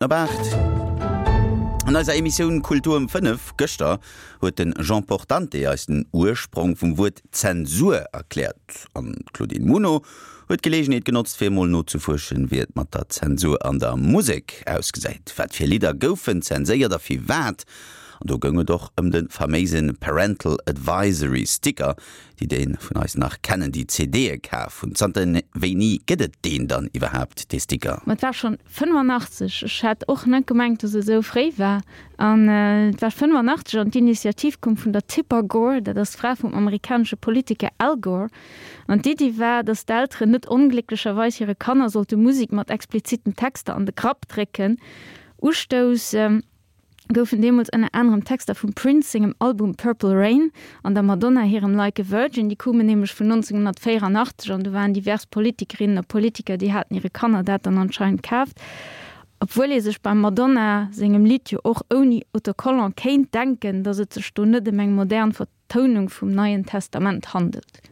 Op 8. An eiser Emissioun Kultur um 5 gëschter huet de Jean Portante eis den Ursprong vum Wuert Zensur erkläert. An d'Claudine Muno huet d'Geleegenheet genotzt fir emol nozefuerschen, wéi et mat der Zensur an der Musek ausgesäit. Wat fir Lidder goufen zenséiert a firwat? An do goung et och ëm de faméise Parental Advisory Sticker, Déi déi vun eis nach kennen, déi CDe kaf hunn, zanter wéini gëtt et deen dann iwwerhaapt, dee Sticker? Ma et war schonn 85. Ech hat och net gemengt, dass et esou fréi war. An et war 85 an d'Initiativ koum vun der Tipper Gore, dat ass d'Fra vum amerikanesche Politiker Al Gore. An d'Iddi war, dass d'Elteren net onglécklecherweis hire Kanner sollte Musek mat expliziten Texter an de Grapp drécken. Ustouss. goufen deemools ënner anerem Texter vum Prince sengem Album Purple Rain an der Madonna hirem Like a Virgin. Déi koumen nämlech vun 1984 an do waren divers Politikerinnen a Politiker, déi haten hire Kanner dat dann anscheinend kaaft. Obwuel ee sech beim Madonna sengem Lidd jo och ouni Autocollant kéint denken, datt et sech do net ëm eng modern Tounung vum Neien Testament handelt.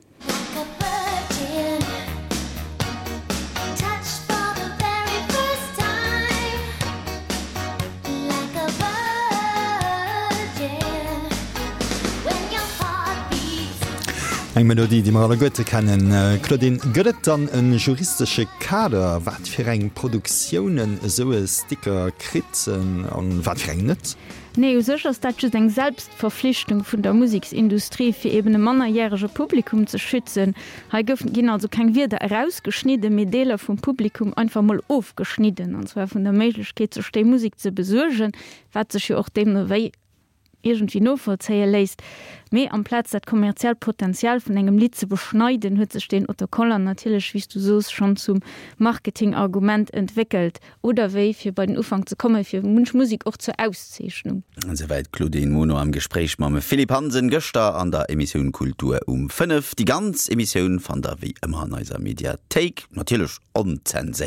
Eng Melodie, déi mer alleguerte kennen. Claudine, gëtt et dann e juristesche Kader, wat fir eng Produktiounen esou e Sticker kritt an wat fir eng net? Nee, u sech ass dat just eng Selbstverflichtung vun der Museksindustrie, fir eben e mannerjärege Publikum ze schützen. Hei goufen, ginn also keng Wierder erausgeschnidden, mee Deeler vum Publikum einfach mol ofgeschnidden, an zwar vun der Méiglechkeet, sech déi Musek ze besuergen, wat sech jo och deemno wéi iergendwéi novollzéie léisst. Mee amplaz dat kommerziellt Potenzial vun engem Lidd ze beschneiden, huet sech deen Autocollant natierlech, wéi s du soos, schonn zum Marketingargument entwéckelt. Oder wéi, fir bei den Ufank ze kommen, fir munch Musek och zur Auszeechnung. Esouwäit d'Claudine Muno am Gespréich mam Philippe Hansen gëschter an der Emissioun Kultur um 5. Déi ganz Emissioun fannt der wéi ëmmer an eiser Mediathéik, natierlech onzenséiert.